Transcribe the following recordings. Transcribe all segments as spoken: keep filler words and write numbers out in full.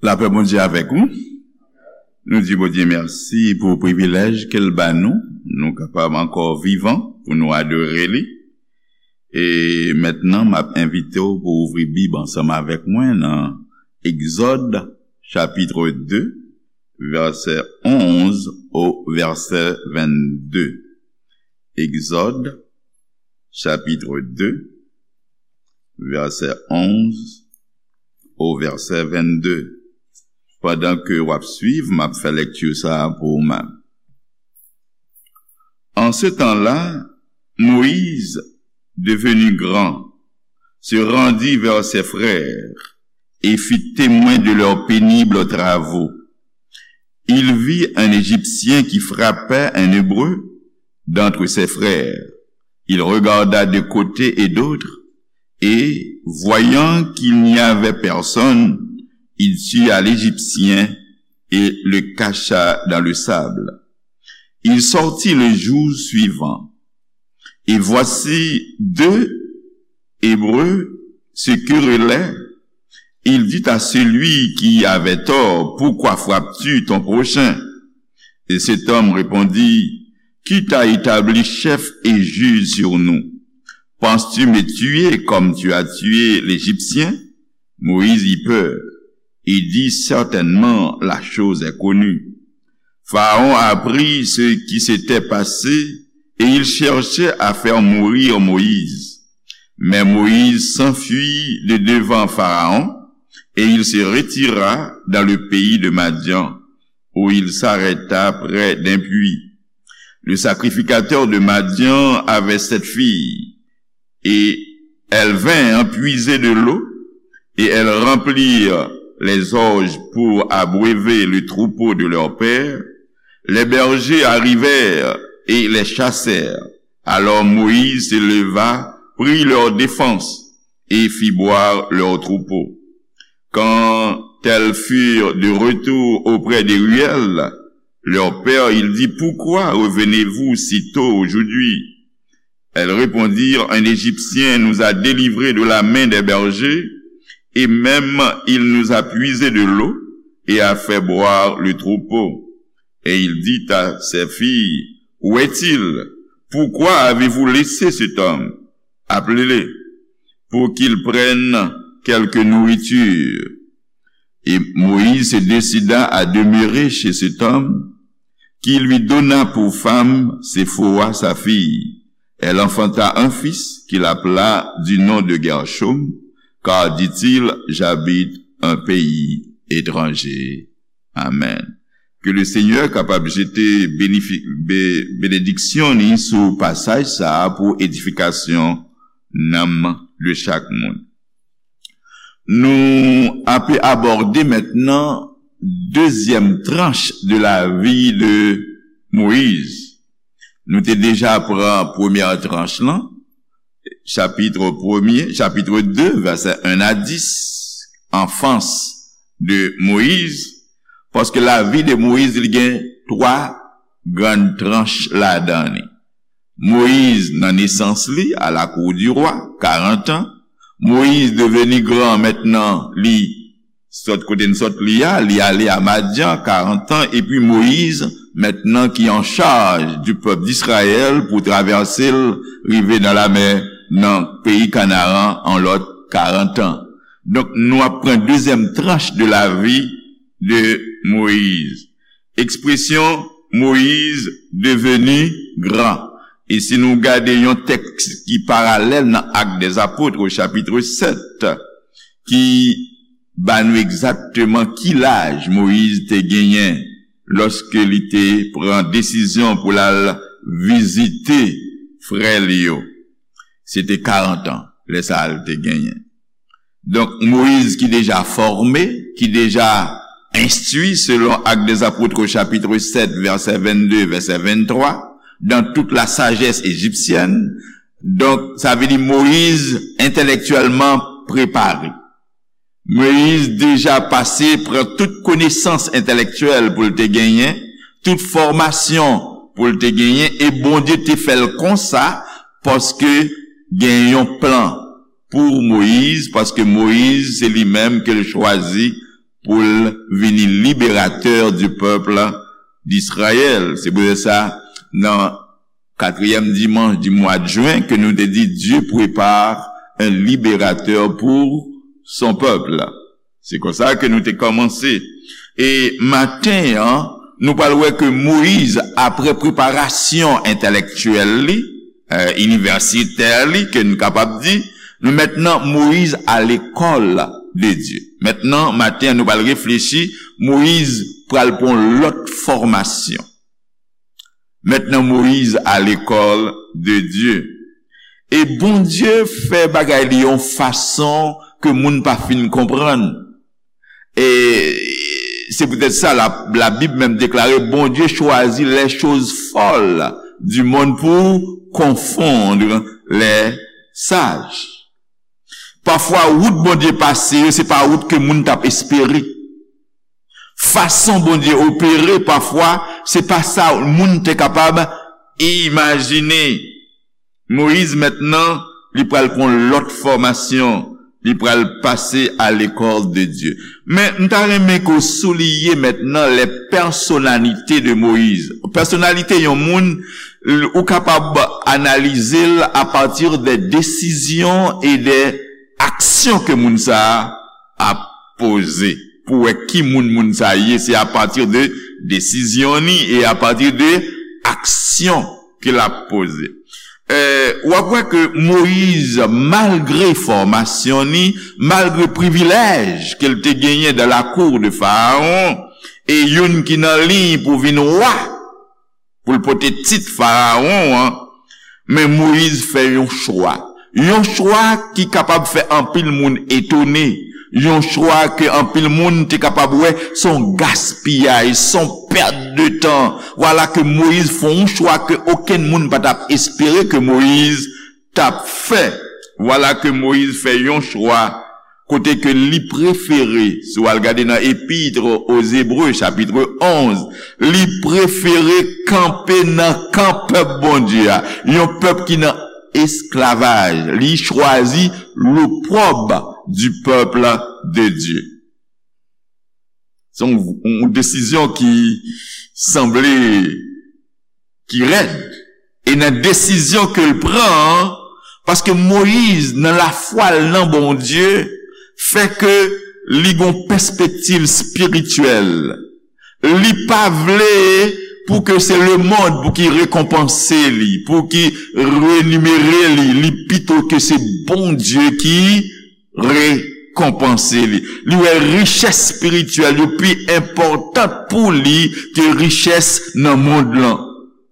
Lapè Bondye avèk ou. Nou di Bondye mèsi pou privilèj ke l ba nou. Nou kapab ankò vivan pou nou adore li. E mentnan, m ap envite w pou ouvri Bib ansanm avèk mwen nan Egzòd, chapit de, vèsè onz o vèsè vennde. Egzòd, chapit de, vèsè onz o vèsè vennde. Pandan ke w ap swiv, m ap fè lekti sa a pou ou menm. En ce temps-là, Moïse, devenu grand, se rendit vers ses frères et fit témoin de leurs pénibles travaux. Il vit un Égyptien qui frappait un Hébreu d'entre ses frères. Il regarda de côté et d'autre, et, voyant qu'il n'y avait personne, il tua l'Égyptien et le cacha dans le sable. Il sortit le jour suivant. Et voici deux Hébreux se querellaient. Il dit à celui qui avait tort, pourquoi frappes-tu ton prochain ? Et cet homme répondit, qui t'a établi chef et juge sur nous ? Penses-tu me tuer comme tu as tué l'Égyptien ? Moïse eut peur et dit, certainement la chose est connue. Pharaon apprit ce qui s'était passé et il cherchait à faire mourir Moïse. Mais Moïse s'enfuit de devant Pharaon et il se retira dans le pays de Madian, où il s'arrêta près d'un puits. Le sacrificateur de Madian avait sept filles, et elles vinrent puiser de l'eau, et elles remplirent les orges pour abreuver le troupeau de leur père. Les bergers arrivèrent et les chassèrent. Alors Moïse se leva, prit leur défense, et fit boire leur troupeau. Quand elles furent de retour auprès de Reuel, leur père, il dit, pourquoi revenez-vous si tôt aujourd'hui ? Elles répondirent, un Égyptien nous a délivrés de la main des bergers, et même il nous a puisé de l'eau et a fait boire le troupeau. Et il dit à ses filles, où est-il ? Pourquoi avez-vous laissé cet homme ? Appelez-le, pour qu'il prenne quelque nourriture. Et Moïse se décida à demeurer chez cet homme, qui lui donna pour femme Séphora sa fille. Elle enfanta un fils qu'il appela du nom de Guerchom, car dit-il, j'habite un pays étranger. Amen. Ke le Senyè kapab jete benediksyon li sou pasaj sa a pou edifikasyon nanm de chak moun. Nou ape abòde mentnan dezyèm tranch de lavi de Moyiz. Nou te deja pran premyè tranch lan, chapit premye, chapit de, vèsè en a dis, anfans de Moyiz, paske lavi de Moyiz li gen twa grann tranch ladan li. Moyiz nan nesans li, à la cour du roi, karant an. Moyiz deveni gran mentnan, li sot kote n sot li a, li ale a Madyan, karant an, epi Moyiz, mentnan ki an chaj du pèp d'Izrayèl pou travèse l rive nan lamè, nan peyi Kanaran, an lòt karant an. Donk, nou ap pran dezyèm tranch de lavi de Moyiz. Ekspresyon Moyiz deveni gran. E si nou gade yon tèks ki paralèl nan Actes des Apôtres, chapit sèt, ki ba nou egzakteman ki laj Moyiz te genyen lòske li te pran desizyon pou l al vizite frè li yo. Se te karant an, lè sa a li te genyen. Donk, Moyiz ki deja fòme, ki deja enstwi, selon Actes des Apôtres, chapit sèt, vèsè vennde, vèsè venntwa, dans toute la sagesse égyptienne. Donk, sa vle di Moyiz entèlektyèlman prepare. Moyiz deja pase pran tout konesans entèlektyèl pou l te genyen, tout fòmasyon pou l te genyen, e Bondye te fè l konsa, paske gen yon plan pou Moyiz, paske Moyiz, se li menm ke l chwazi pou l vini libérateur du peuple d'Israël. Se poutèt sa, nan quatrième dimanche du mois de juin, ke nou te di, Dieu prépare un libérateur pour son peuple. Se konsa ke nou te kòmanse. E maten an, nou pral wè ke Moyiz, apre preparasyon entèlèktyèl li, eh, inivèsitè li, ke nou kapab di, nou mentnan Moyiz à l'école de Dieu. Mentnan, maten an, nou pral reflechi, Moyiz pral pran lòt fòmasyon. Mentnan, Moyiz à l'école de Dieu. E Bondye fè bagay li yon fason ke moun pa fin konprann. E se poutèt sa, la, la Bible menm deklare, Bondye chwazi les choses folles du monde pour confondre les sages. Pafwa, wout Bondye pase yo, se pa wout ke moun t ap espere. Fason Bondye opere, pafwa, se pa sa moun te kapab imajine. Moyiz, mentnan, li pral pran lòt fòmasyon. Li pral pase à l'école de Dieu. Men, m ta renmen ke w souliye mentnan les personnalités de Moïse. Pèsonalite yon moun, l-, ou kapab analize l à partir des décisions et des actions ke moun sa a ap poze. Pou wè ki moun moun sa ye, se à partir de desizyon ni e à partir de aksyon ke l ap poze. Eh, w ap wè ke Moyiz, malgre fòmasyon ni, malgre privilèj ke l te genyen dans la cour de Pharaon, e youn ki nan liy pou vin wa, pou l pote tit Farawon an, men Moyiz fè yon chwa. Yon chwa ki kapab fè anpil moun etone. Yon chwa ke anpil moun te kapab wè s on gaspiyaj, s on pèt de tan. Vwala ke Moyiz fè yon chwa ke okenn moun pa t ap espere ke Moyiz t ap fè. Vwala ke Moyiz fè yon chwa kote ke li prefere, si w al gade nan Épître aux Hébreux, chapitre onze, li prefere kanpe nan kan pèp Bondye a, yon pèp ki nan esklavaj. Li chwazi l'opprobre du peuple de Dieu. Se yon, yon desizyon ki sanble ki rèd. E nan desizyon ke l pran an, paske Moyiz, nan lafwa l nan Bondye, fè ke li gon pèspektiv espirityèl. Li pa vle pou ke se lemonn pou ki rekonpanse li, pou ki renimere li, li pito ke se Bondye ki rekonpanse li. Li wè richès espirityèl yo pi enpòtan pou li ke richès nan mond lan.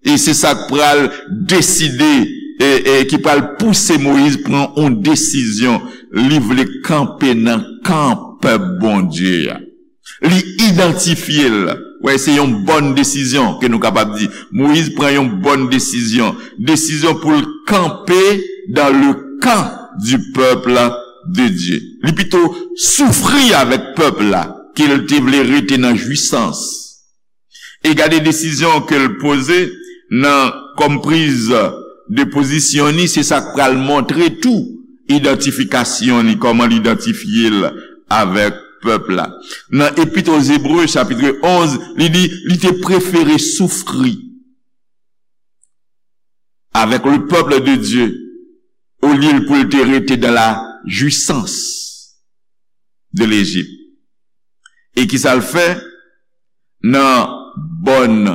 E se sa k pral deside, e, e ki pral pouse Moyiz pran yon desizyon. Li vle kanpe nan kan pèp Bondye a. Li idantifye l. Wè, se yon bòn desizyon ke nou kapab di. Moyiz pran yon bòn desizyon. Desizyon pou l kanpe dans le camp du peuple de Dieu. Li pito soufri avèk pèp la ke l te vle rete nan jwisans. E gade desizyon ke l poze nan kòm priz de pozisyon ni, se sa k pral montre tou idantifikasyon ni, kòman l idantifye l avèk pèp la. Nan Épître aux Hébreux, chapitre onze, li di, li te prefere soufri avec le peuple de Dieu, olye pou l te rete dans la jouissance de l'Égypte. E ki sa l fè? Nan bòn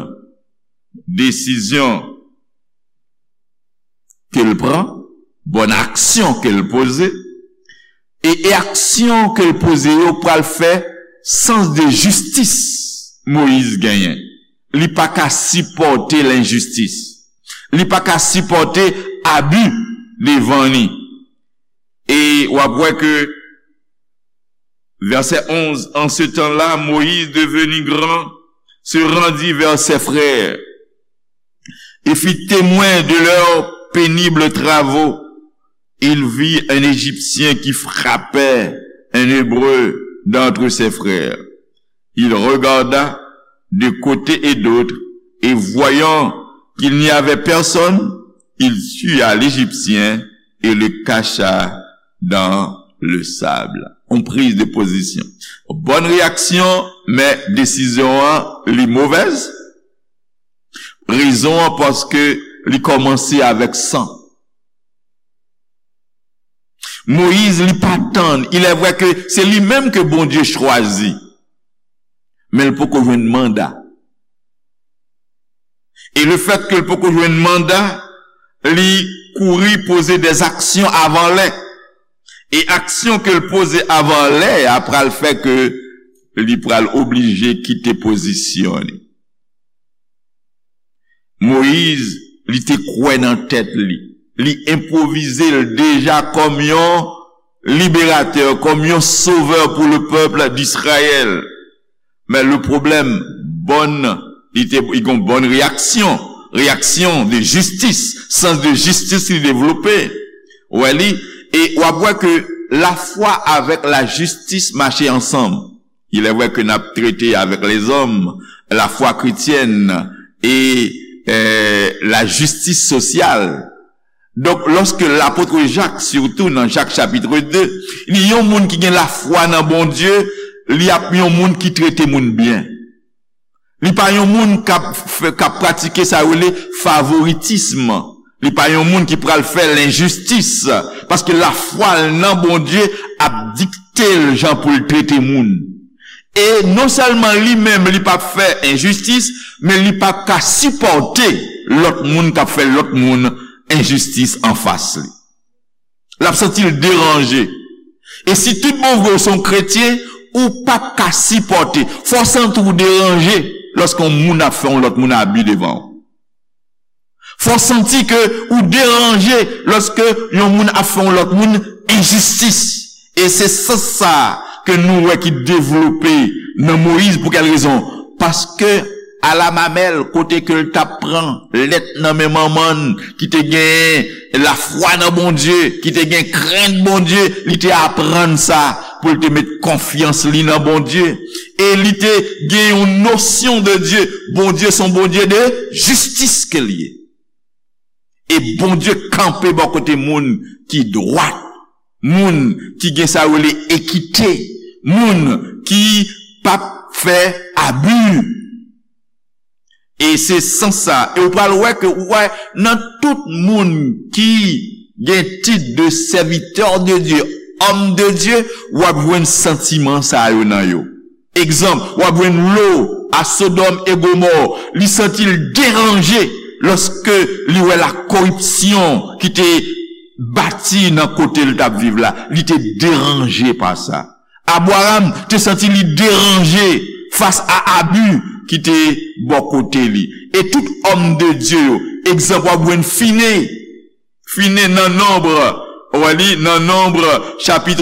desizyon ke l pran, bòn aksyon ke l poze, e, e aksyon ke l poze yo pral fè sans de jistis Moyiz genyen. Li pa ka sipòte lenjistis. Li pa ka sipòte abi devan li. E w ap wè ke, verset onze, en ce temps-là, Moïse, devenu grand, se rendit vers ses frères et fit témoin de leurs pénibles travaux. Il vit un Égyptien qui frappait un Hébreu d'entre ses frères. Il regarda de côté et d'autre, et voyant qu'il n'y avait personne, il tua l'Égyptien et le cacha dans le sable. Yon priz de pozisyon. Bòn reyaksyon, men desizyon an, li movèz. Rezon an, paske li kòmanse avèk san. Moyiz, li pa tann. Il est vrai que se li menm ke Bondye chwazi. Men l poko jwenn manda. E le fèt ke l poko jwenn manda, li kouri poze dè aksyon avan lè. E aksyon ke l poze avan lè a pral fè ke li pral oblije kite pozisyon li. Moyiz, li te kwè nan tèt li. Li enpwovize l deja kòm yon liberatè, kòm yon sovè pou le pèp d'Izrayèl. Men le pwoblèm, bòn, li te, li gon bòn reyaksyon, reyaksyon de jistis, sans de jistis li devlope. Ou wè li, e w ap wè ke lafwa avèk lajistis mache ansanm. Il est vrai que n ap trete avèk lèzòm, lafwa kretyèn e, eh, lajistis sosyal. Donk, lòske lapot Jak, sitou nan Jak chapit de, li yon moun ki gen lafwa nan Bondye, li ap yon moun ki trete moun byen. Li pa yon moun k ap fè, k ap pratike sa yo rele favoritism. Li pa yon moun ki pral fè lenjistis, paske lafwa l nan Bondye ap dikte l jan pou l trete moun. E non sèlman li menm li p ap fè enjistis, men li p ap ka sipòte lòt moun k ap fè lòt moun enjistis anfas li. L ap santi l deranje. E si tout bon vre w se yon kretyen, ou p ap ka sipòte. Fò w santi w deranje lòske yon moun ap fè yon lòt moun abi devan w. Fò w santi ke ou deranje lòske yon moun ap fè yon lòt moun enjistis. E se sans sa a ke nou wè ki devlope nan Moyiz. Pou kèl rezon? Paske alamamèl, kote ke l t ap pran lèt nan men manman l ki te gen lafwa nan Bondye, ki te gen krent Bondye, li te aprann sa pou l te met konfyans li nan Bondye. E li te gen yon nosyon de Dye. Bondye se yon Bondye de jistis ke l ye. E Bondye kanpe bò kote moun ki dwat, moun ki gen sa yo rele ekite, moun ki p ap fè abi. E se sans sa, e ou pral wè ke ou wè nan tout moun ki gen tit de serviteur de Dieu, homme de Dieu, w ap jwenn santiman sa yo nan yo. Egzanp, w ap jwenn Lo a Sodòm e Gomò, li santi l deranje lòske li wè la koripsyon ki te bati nan kote l t ap viv la. Li te deranje pa sa. Abraram te santi li deranje fas a abi ki te bò kote li. E tout òm de Dye yo, egzanp, w ap jwenn Fine, Fine nan Nonb, w a li nan Nonb, chapit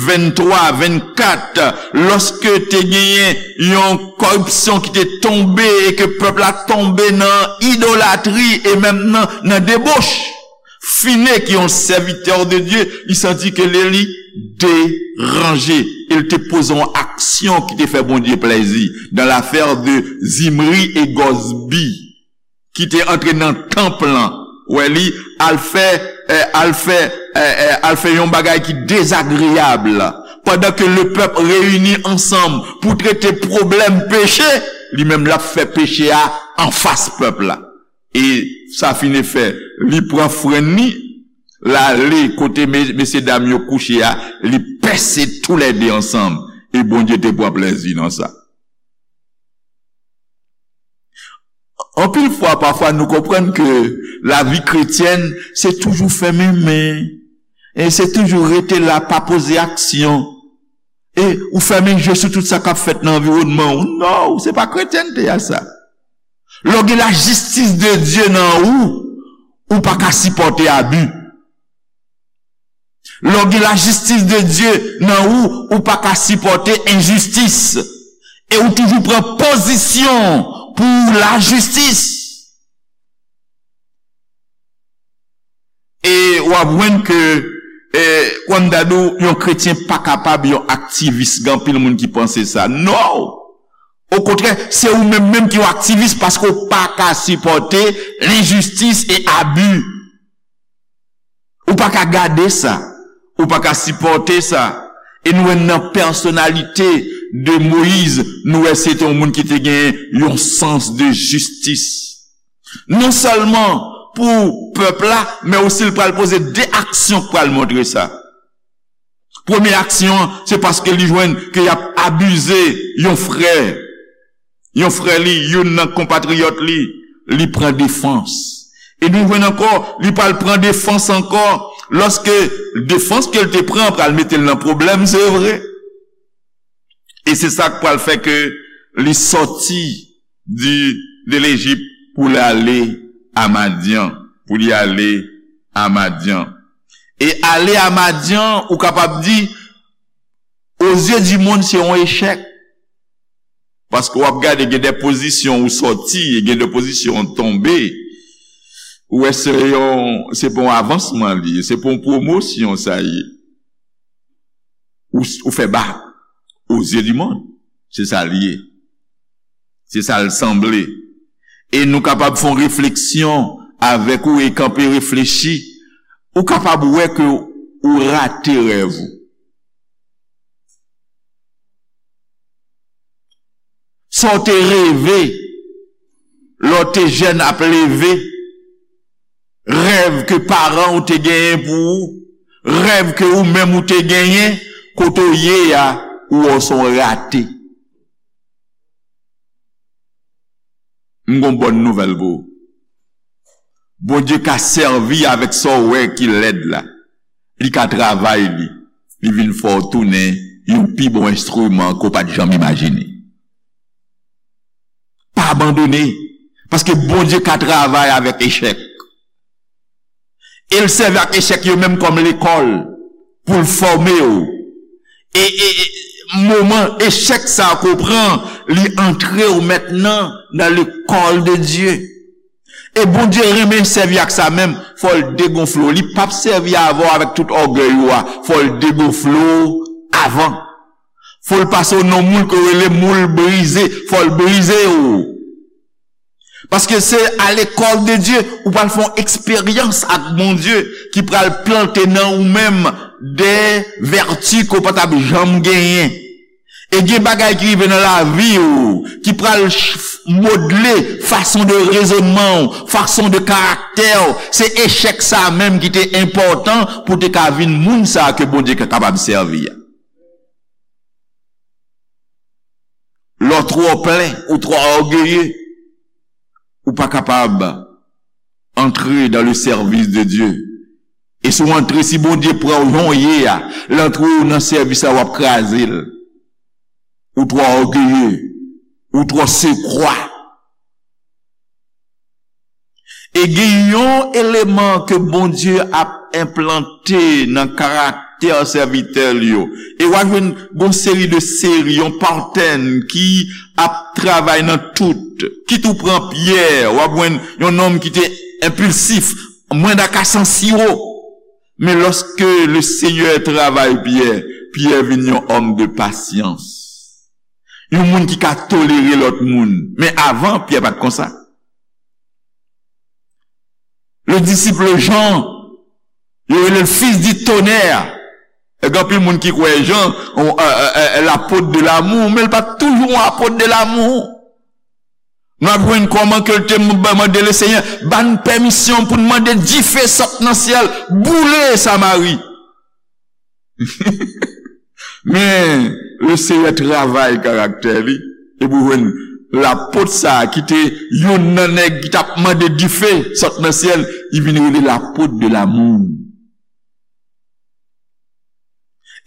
venntwa, vennkat, lòske te genyen yon koripsyon ki te tonbe e ke pèp la tonbe nan idolatri e menm nan, nan deboch. Fine, ki yon sèvitè de Dye, li santi ke li, li deranje. E l te poze yon aksyon ki te fè Bondye plèzi. Dans l'affaire de Zimri e Gozbi, ki te antre nan tanp lan, wè li, al fè, eh, al fè, eh, eh, al fè yon bagay ki dezagreyab. Pandan ke le pèp reyini ansanm pou trete pwoblèm peche, li menm l ap fè peche a anfas pèp la. E sa fini fè, li pran frenn li, l ale kote me-, mesye dam yo kouche a, li pèse toulède ansanm. E Bondye te pran plèzi nan sa. Anpil fwa, pafwa, nou konprann ke lavi kretyèn, se toujou fèmen men, e se toujou rete la, pa poze aksyon. E ou fèmen je sou tout sa k ap fèt nan anviwònman w. Non, se pa kretyènte a sa. Lè w gen lajistis de Dye nan ou, ou pa ka sipòte abi. Lè w gen lajistis de Dye nan ou, ou pa ka sipòte enjistis. E ou toujou pran pozisyon pou lajistis. E w ap jwenn ke, eh, kòm m ta di w, yon kretyen pa kapab yon aktivis. Gen anpil moun ki panse sa. Non! Okontrè, se ou menm menm ki yon aktivis paske w pa ka sipòte lenjistis e abi. Ou pa ka gade sa. Ou pa ka sipòte sa. E nou wè nan pèsonalite de Moyiz, nou wè se te yon moun ki te gen yon sans de jistis. Non sèlman pou pèp la, men osi li pral poze de aksyon k pral montre sa. Premye aksyon an, se paske li jwenn ke y ap abize yon frè. Yon frè li, youn nan konpatriyòt li, li pran defans. E nou jwenn ankò, li pral pran defans ankò, lòske defans ke l te pran pral mete l nan pwoblèm, se vre. E se sa k pral fè ke li sòti di, de Lejip pou l ale a Madyan, pou li ale a Madyan. E ale a Madyan, ou kapab di, aux yeux du monde, se yon echèk. Paske w ap gade, gen de pozisyon ou sòti, e gen de pozisyon ou tonbe. Ou wè se yon, se pa yon avansman li ye, se pa yon pwomosyon sa ye. Ou, ou fè ba, aux yeux du monde. Se sa l ye. Se sa l sanble. E nou kapab fè yon refleksyon avèk ou e kanpe reflechi. Ou kapab wè ke ou rate rèv ou. Sa w te reve lè w te jèn ap leve, rèv ke paran w te genyen pou ou, rèv ke ou menm ou te genyen, kote w ye a, ou wè w se yon rate. M gon bòn nouvèl pou ou. Bondye ka sèvi avèk sa w wè ki lèd la. Li ka travay li. Li vin fè w tounen yon pi bon enstriman ke w pa t janm imajine. Pa abandone. Paske Bondye ka travay avèk echèk. E l sèvi ak echèk yo menm kòm lekòl pou l fòme w. E, e, e moman echèk sa a ke w pran, li antre w mentnan nan lekòl de Dye. E Bondye renmen sèvi ak sa menm, fò l degonfle w. Li p ap sèvi avè w avèk tout ògèy ou a, fò l degonfle w avan. Fò l pase w nan moul ke yo rele moul brize, fò l brize w. Paske se à l'école de Dieu, ou pral fè yon eksperyans ak Bondye ki pral plante nan ou menm de vèti ke w pa t ap janm genyen. E gen bagay ki rive nan lavi w ki pral ch-, modle fason de rezonman w, fason de karaktè w. Se echèk sa a menm ki te enpòtan pou w te ka vin moun sa a ke Bondye ka kapab sèvi a. Lè w twò plen ou twò ògeye, ou pa kapab antre dans le service de Dieu. E si w antre, si Bondye pran w jan w ye a, l antre w nan sèvis la, w ap kraze l. Ou twò ògeye, ou twò sekwa. E gen yon eleman ke Bondye ap enplante nan karaktè sèvitè l yo. E w a jwenn gon seri de seri, yon patèn ki ap travay nan tout. Kit ou pran Pyè, w ap jwenn yon nonm ki te enpilsif, mwen da ka san siwo. Men lòske le Senyè travay Pyè, Pyè vin yon òm de pasyans. Yon moun ki ka tolere lòt moun. Men avan, Pyè pa t konsa. Le disciple Jean, yo rele l fils du tonnerre. E gen anpil moun ki kwè Jan, on, euh, euh, euh, l'apôtre de l'amour, men l pa t toujou yon apot de l'amour. Nou ap jwenn kòman ke l te m-, mande le Senyè, ba n pèmisyon pou n mande dife sot nan syèl, boule Samari. Men, le Senyè travay karaktè li, epi w jwenn lapot sa a ki te youn nan nèg ki t ap mande dife sot nan syèl, li vin rele lapot de l'amour.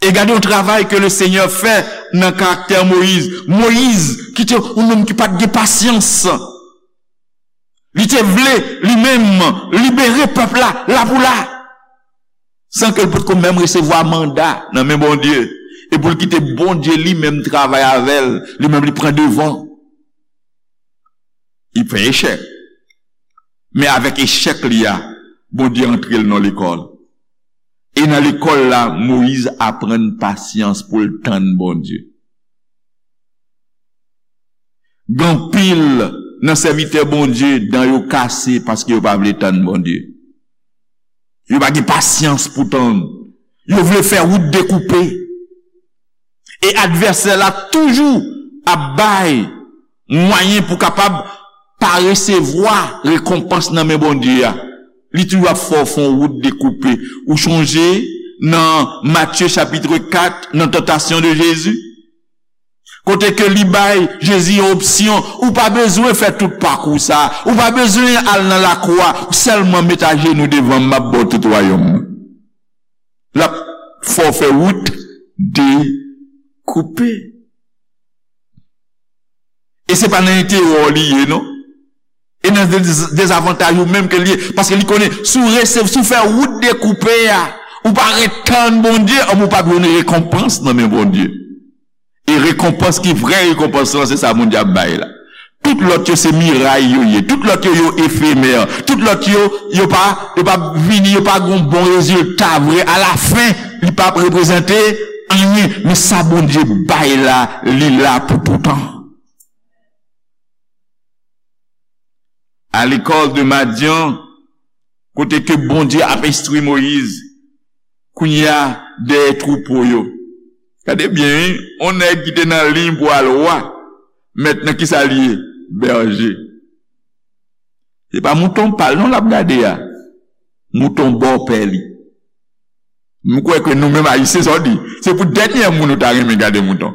E gade yon travay ke le Senyè fè nan karaktè Moyiz. Moyiz, ki te yon nonm ki pa t gen pasyans. Li te vle, li menm, libere pèp la, la pou la. San ke l potko menm resevwa manda nan men Bondye. E pou l kite Bondye li menm travay avè l, li menm li pran devan. Li fè echèk. Men avèk echèk li a, Bondye antre l nan lekòl. E nan lekòl la, Moyiz aprann pasyans pou l tann Bondye. Gen anpil nan sèvitè Bondye, dan yo kase paske yo pa vle tann Bondye. Yo pa gen pasyans pou tann. Yo vle fè wout dekoupe. E advèsè la toujou ap bay mwayen pou kapab pa resevwa rekonpans nan men Bondye a. Li toujou ap fè w fè yon wout dekoupe. Ou chonje nan Matye chapit kat, nan tantasyon de Jezi? Kote ke li bay Jezi yon opsyon, ou pa bezwen fè tout pakou sa, ou pa bezwen al nan lakou a, ou sèlman met ajenou devan m, m ap ba w tout wayòm nan. L ap fè w fè wout dekoupe. E se pa nan enterè w li ye, non. E nan dez-, dezavantaj ou menm ke li ye. Paske li konnen, si w rese-, si w fè wout dekoupe a, ou pa ret tann Bondye, anben w p ap jwenn rekonpans nan men Bondye. E rekonpans ki vrè rekonpans lan, se sa Bondye ap bay la. Tout lòt yo se miray yo ye. Tout lòt yo, yo efemè. Tout lòt yo, yo pa, yo pa vini, yo pa gon bon rezilta vre. Alafen, li pa ap reprezante anyen. Men sa Bondye bay la, li la pou toutan. À l'école de Madian, kote ke Bondye ap enstwi Moyiz, kounye a, dèyè twoupo yo. Gade byen, wi, yon nèg ki te nan liy pou al wa, mentnan ki sa li ye? Bèje. Se pa mouton pa l non l ap gade a. Mouton bòpè li. M kwè ke nou menm Ayisyen, sa w di, se pou dènyè moun ou ta renmen gade mouton.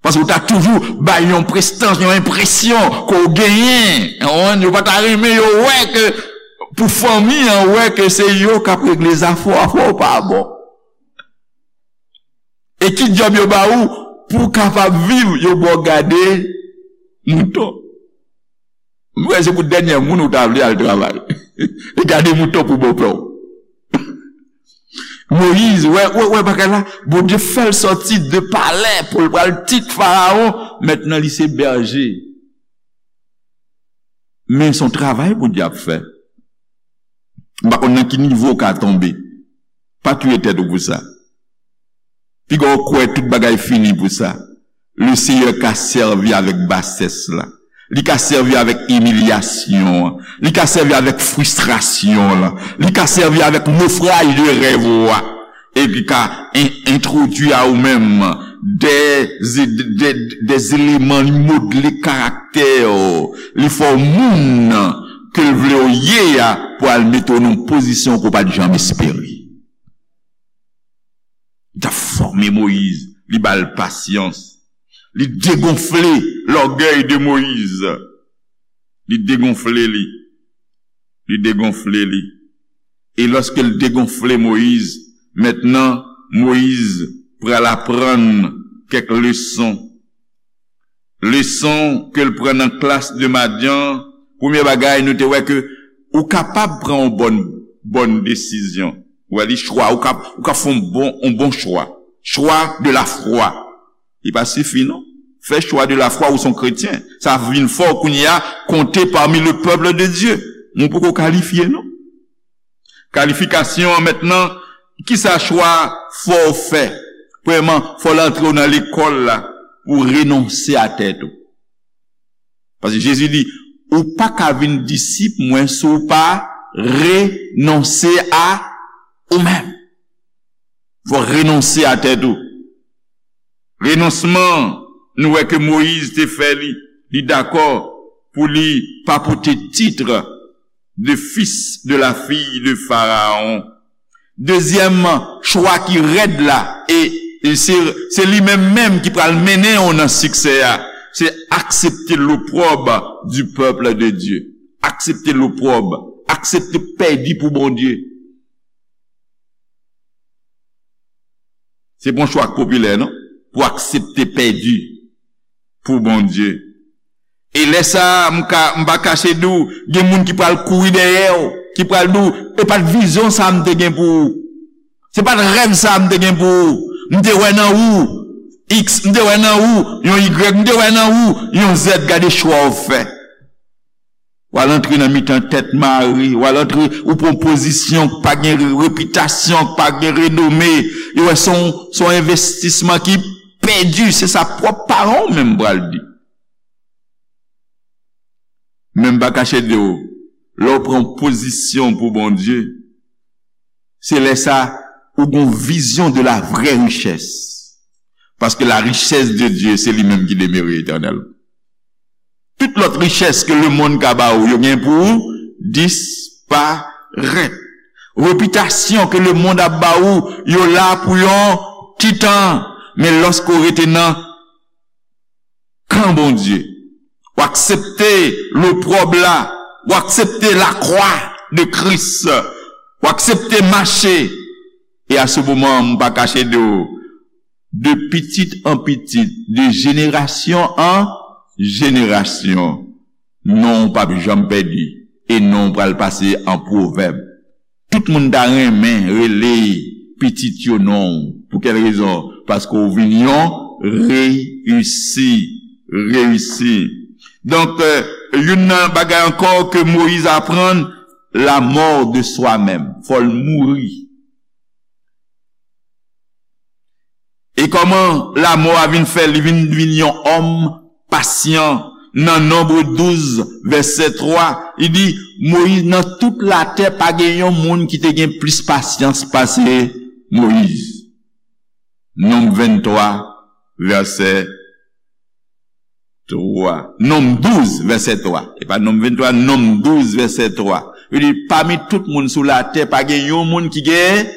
Paske w ta toujou bay yon prestans, yon enpresyon ke w genyen. Ou konprann? Yo pa ta renmen yo wè ke pou fanmi an wè ke se yo k ap regle zafè w, afè w pa bon. E ki djòb yo ba ou pou w kapab viv, yo ba w gade mouton. M wè se pou dènyè moun ou ta vle al travay. E gade mouton pou bòpè w. Moyiz, wè, wè, wè bagay la, Bondye fè l sòti de palè pou l pral tit Farawon, mentnan li se bèje. Men se yon travay Bondye ap fè. M pa konn nan ki nivo w ka tonbe. Pa touye tèt ou pou sa. Piga w kwè tout bagay fini pou sa. Le Seyè ka sèvi avèk basès la. Li ka sèvi avèk imilyasyon an. Li ka sèvi avèk fristrasyon la. Li ka sèvi avèk nofraj de rèv ou a. E li ka en-, entwodui a ou menm de, de, de, de eleman, li modle karaktè w. Li fè w moun ke l vle w ye a pou al mete w nan yon pozisyon ke w pa t janm espere. Li t ap fòme Moyiz, li ba l pasyans. Li degonfle lògèy de Moyiz. Li degonfle li. Li degonfle li. E lòske l degonfle Moyiz, mentnan Moyiz pral aprann kèk leson. Leson ke l pran nan klas de Madyan, premye bagay, nou te wè ke ou kapab pran yon bòn, bòn desizyon. Ou wè, li chwa, ou ka, ou ka fè yon bon, yon bon chwa. Chwa de la fwa. Li pa sifi, non. Fè chwa de la fwa, ou se yon kretyen. Sa vin fè w kounye a konte parmi le peuple de Dieu. Men w poko kalifye, non. Kalifikasyon an mentnan, kisa chwa fò w fè? Premyèman, fò l antre w nan lekòl la pou w renonse a tèt ou. Paske Jezi di, ou pa ka vin disip mwen si w pa renonse a ou menm. Fò w renonse a tèt ou. Renonsman, nou wè ke Moyiz te fè li, li dakò pou li pa pote tit de fils de la fille de Pharaon. Dezyèm chwa ki rèd la, e, e se, se li menm menm ki pral mennen w nan siksè a, se aksepte l'opprobre du peuple de Dieu. Aksepte l'opprobre, aksepte pèdi pou Bondye. Se pa yon chwa k popilè, non, pou aksepte pèdi pou Bondye. E lè sa a, m ka, m pa kache di w, gen moun ki pral kouri dèyè w, ki pral di w, e pa t vizyon sa a m te gen pou ou. Se pa t rèv sa a m te gen pou ou. M te wè nan ou X, m te wè nan ou yon Y, m te wè nan ou yon Z, gade chwa w fè. W al antre nan mitan tèt mare, w al antre, ou pran pozisyon k pa gen re-, repitasyon, k pa gen renome. Yo wè se yon, se yon envestisman ki pèdi, se sa pwòp paran w menm pral di. Men m pa kache di w, lè w pran pozisyon pou Bondye, se lè sa ou gon vizyon de la vraie richesse. Paske la richès de Dye, se li menm ki demere etènèl. Tout lòt richès ke lemonn ka ba ou, yo gen pou disparèt. Repitasyon ke lemonn ap ba ou, yo la pou yon ti tan. Men lòske w rete nan kan Bondye, w aksepte lopwòb la, w aksepte lakwa de Kris, w aksepte mache. E a se moman, m pa kache de w, de pitit an pitit, de jenerasyon an jenerasyon, non w p ap janm pèdi, e non w pral pase an pwovèb. Tout moun ta renmen rele pitit yo non w. Pou kèl rezon? Paske w vin yon reyisi. Reyisi. Donk, euh, youn nan bagay ankò ke Moyiz aprann, la mort de soi-même. Fò l mouri. E kòman lamò a vin fè li vin, vin yon òm pasyan? Nan Nonb douz, vèsè twa, li di, Moyiz, nan tout latè, pa gen yon moun ki te gen plis pasyans pase Moyiz. Nonb venntwa, vèsè twa. Nonb douz, vèsè twa. E pa Nonb venntwa, Nonb douz, vèsè twa. Li di, pami tout moun sou latè, pa gen yon moun ki gen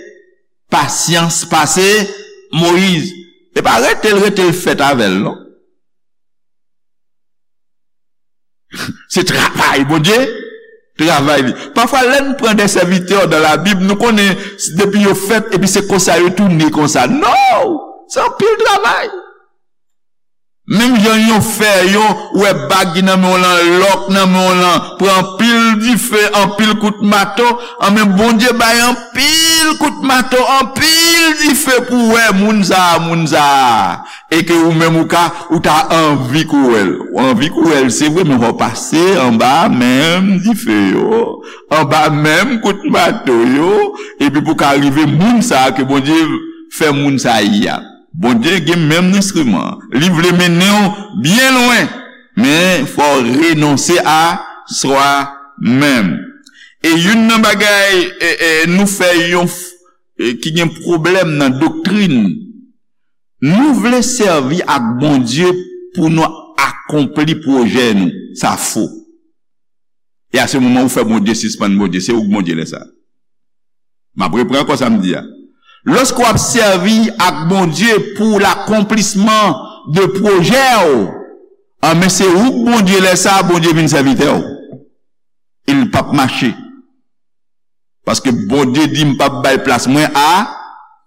pasyans pase Moyiz. E pa rete l, rete l fèt avè l, non. Se travay Bondye, travay li. Pafwa, lè n pran de sèvitè dan Labib, nou konnen depi yo fèt, epi se konsa yo tounen konsa. Non! Se anpil travay. Menm jan yon fè, yon, ou wè bag ki nan men w lan, lòk nan men w lan, pran anpil dife, anpil kout mato, anben Bondye bay anpil kout mato, anpil dife pou w wè moun sa a, moun sa a. E ke ou menm ou ka, ou ta anvi kou wè l. Ou anvi kou wè l, se vre, men w pase anba menm dife yo, anba menm kout mato yo, epi pou ka rive moun sa a ke Bondye fè moun sa a ye a. Bondye gen menm enstriman. Li vle mennen w byen lwen, men fò w renonse a swa menm. E youn nan bagay, e, e, nou fè yon f-, e, ki gen pwoblèm nan doktrin, nou vle sèvi ak Bondye pou nou akonpli pwojè nou. Sa fo. E a se moman ou fè Bondye sispann Bondye. Se ou k Bondye lè sa. M ap repran ankò sa m di a. Lòske w ap sèvi ak Bondye pou lakonplisman de pwojè w, anben se ou k Bondye lè sa, Bondye vin sèvitè w. E l p ap mache. Paske Bondye di, "M p ap bay plas mwen a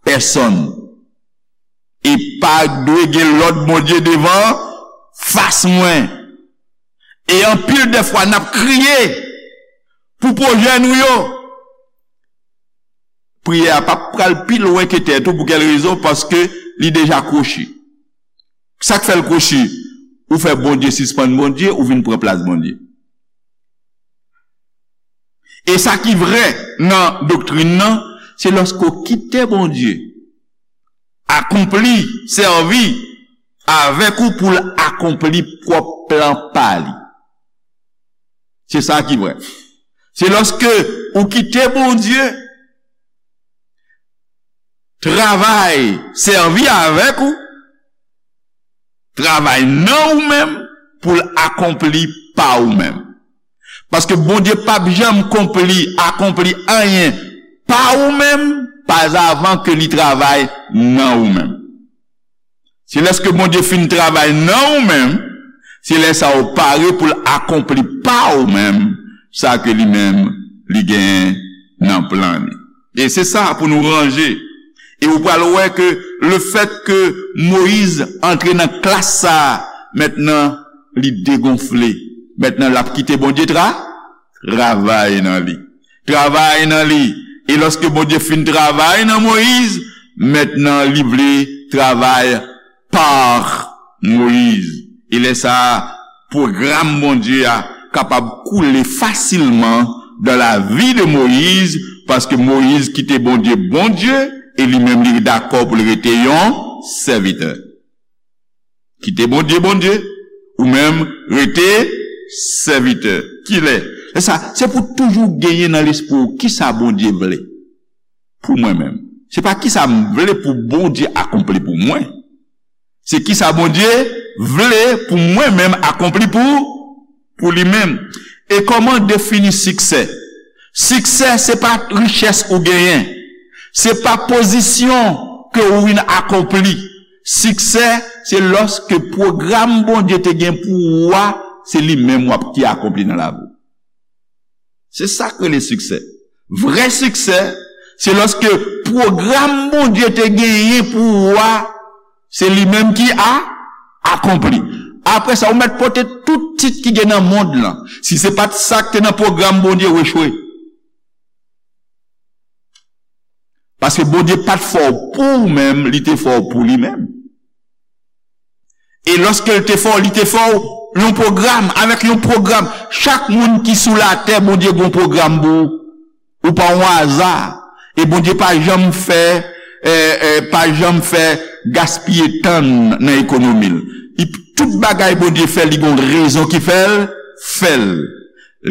pèsonn." E pa dwe gen lòt Bondye devan fas mwen. E anpil de fwa, n ap kriye pou pwojè nou yo. Priyè a p ap pral pi lwen ke tèt ou. Pou kèl rezon? Paske li deja kwochi. Sa k fè l kwochi? Ou fè Bondye sispann Bondye, ou vin pran plas Bondye. E sa ki vrè nan doktrin nan, se lòske w kite Bondye akonpli, sèvi avèk ou pou l akonpli pwòp plan pa li. Se sa ki vrè. Se lòske ou kite Bondye travay, sèvi avèk ou, travay nan ou menm pou l akonpli pa ou menm. Paske Bondye p ap janm konpli, akonpli anyen pa ou menm, pa avan ke li travay nan ou menm. Se lèske Bondye fin travay nan ou menm, se lè sa ou pare pou l akonpli pa ou menm, sa ke li menm, li genyen nan plan li. E se sa pou nou ranje. E ou pral wè ke lefèt ke Moyiz antre nan klas sa a, mentnan li degonfle. Mentnan l ap kite Bondye tra-, travay nan li. Travay nan li. E lòske Bondye fin travay nan Moyiz, mentnan li vle travay pa Moyiz. E lè sa a, pwogram Bondye a kapab koule fasilman dans la vie de Moïse, paske Moyiz kite Bondye Bondye, e li menm li dakò pou l rete yon sèvitè. Kite Bondye Bondye, ou menm rete sèvitè. Kilè? E sa, se pou toujou genyen nan lespri w kisa Bondye vle pou mwen menm. Se pa kisa m vle pou Bondye akonpli pou mwen. Se kisa Bondye vle pou mwen menm akonpli pou, pou li menm. E kòman defini siksè? Siksè, se pa richès ou genyen. Se pa pozisyon ke ou vin akonpli. Siksè, se lòske pwogram Bondye te gen pou ou a, se li menm w ap ki akonpli nan lavi w. Se sa k rele siksè. Vrè siksè, se lòske pwogram Bondye te genyen pou ou a, se li menm ki a, akonpli. Apre sa, ou mèt pote tout tit ki gen nan mond lan. Si se pa t sa k te nan pwogram Bondye, ou echwe. Paske Bondye pa t fè w pou ou menm, li te fè w pou li menm. E lòske l te fè w, li te fè w yon pwogram, avèk yon pwogram. Chak moun ki sou latè, Bondye gen yon pwogram pou ou. Ou pa yon aza. E Bondye pa janm fè, eh, eh, pa janm fè gaspiye tan nan ekonomi l. Li, tout bagay Bondye fè, li gen yon rezon ki fè l, fè l.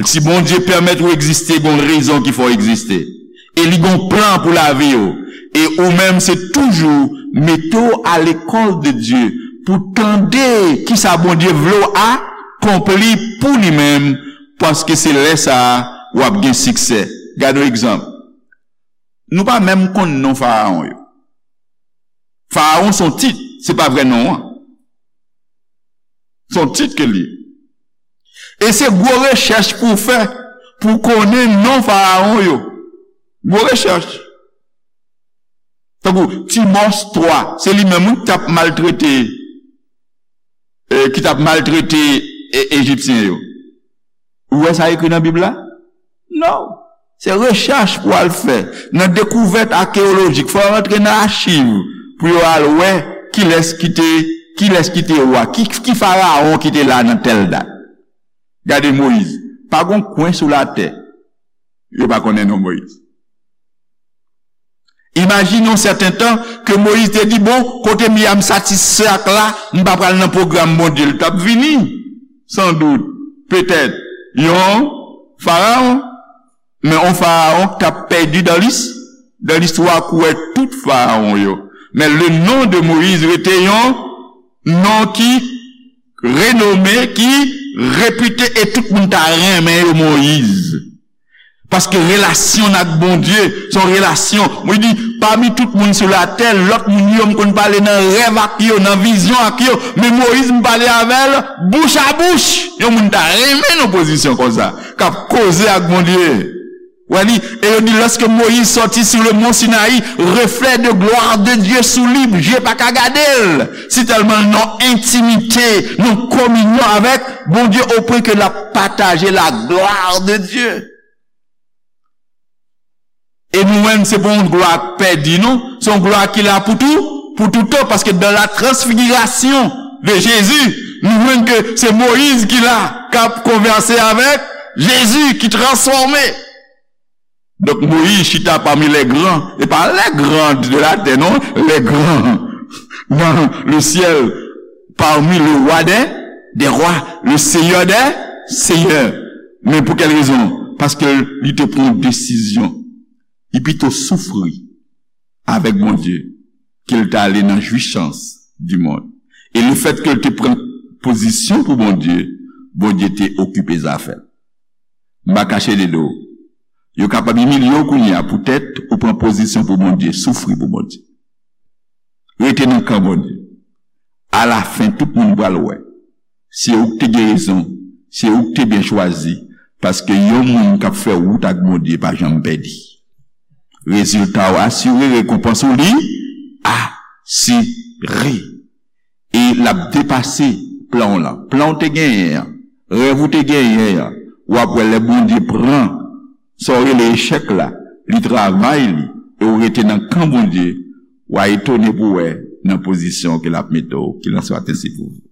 Si Bondye pèmèt ou egziste, gen yon rezon ki fè w egziste. E li gen yon plan pou lavi w. E ou menm, se toujou mete w a lekòl de Dye pou tande kisa Bondye vle w akonpli pou li menm, paske se lè sa a w ap gen siksè. Gade yon egzanp. Nou pa menm konn non farawon yo. Farawon se yon tit, se pa vrè non an. Se yon tit ke l ye. E se gwo rechèch pou w fè, pou w konnen non farawon yo. Gwo rechèch. Tankou Timòs twa, se li menm, wi, ki t ap maltrete, eh, ki t ap maltrete, eh, Ejipsyen yo. Ou wè sa ekri nan Bib la? Non. Se rechèch pou al fè. Nan dekouvèt akeyolojik, fò yo rantre nan achiv pou yo al wè kilès ki te, kilès ki te wa, ki, ki farawon ki te la nan tèl dat. Gade Moyiz. Pa gon kwen sou latè yo pa konnen non Moyiz. Imajine yon sèten tan ke Moyiz te di, "Bon, kote m ye a, m satisfè ak la, m pa pral nan pwogram Bondye." L t ap vini, sandout, petèt, yon farawon. Men yon farawon k t ap pèdi dan lis-, dan listwa kouwè tout farawon yo. Men le non de Moyiz rete yon non ki renome, ki repite, e tout moun ta renmen yo Moyiz. Paske relasyon n ak Bondye, se yon relasyon. Mwen di, pami tout moun sou latè, lòt moun yo, m konn pale nan rèv ak yo, nan vizyon ak yo. Men Moyiz, m pale avè l bouch a bouch. Yon moun ta renmen nan pozisyon konsa, k ap koze ak Bondye. Wè li, e yo di, lorsque Moïse sortit sur le mont Sinaï, reflet de gloire de Dieu sous lui, je pa ka gade l. Si tèlman l nan entimite, nan kominyon avèk Bondye, au point que l ap pataje la gloire de Dieu. E nou menm, se pa yon glwa k pèdi, non. Se yon glwa ki la pou tou, pou toutan, paske dans la transfiguration de Jésus, nou jwenn ke se Moyiz ki la, k ap konvèse avèk Jezi, ki transfòme. Donk, Moyiz chita pami les grands, e pa les grands de la terre, non, les grands dans le ciel, parmi le roi des, des rois, le seigneur des seigneurs. Men pou kèl rezon? Paske li te pran yon desizyon. Li pito soufri avèk Bondye ke l ta ale nan jwisans di mond. E lefèt ke l te pran pozisyon pou Bondye, Bondye te okipe zafè l. M pa kache de do. Yo kapab imilye w kounye a poutèt ou pran pozisyon pou Bondye, soufri pou Bondye. Rete nan kan Bondye. Alafen, tout moun pral wè. Se ou k te gen rezon. Se ou k te byen chwazi. Paske yon moun k ap fè wout ak Bondye pa janm pèdi. Rezilta w asire, rekonpans ou li asire. E l ap depase plan w lan. Plan w te genyen an, rèv ou te genyen an, w ap wè lè Bondye pran sa w rele echèk la, li travay li, e w rete nan kan Bondye, w a etone pou wè nan pozisyon ke l ap mete w, ke l ap swa te si pou ou.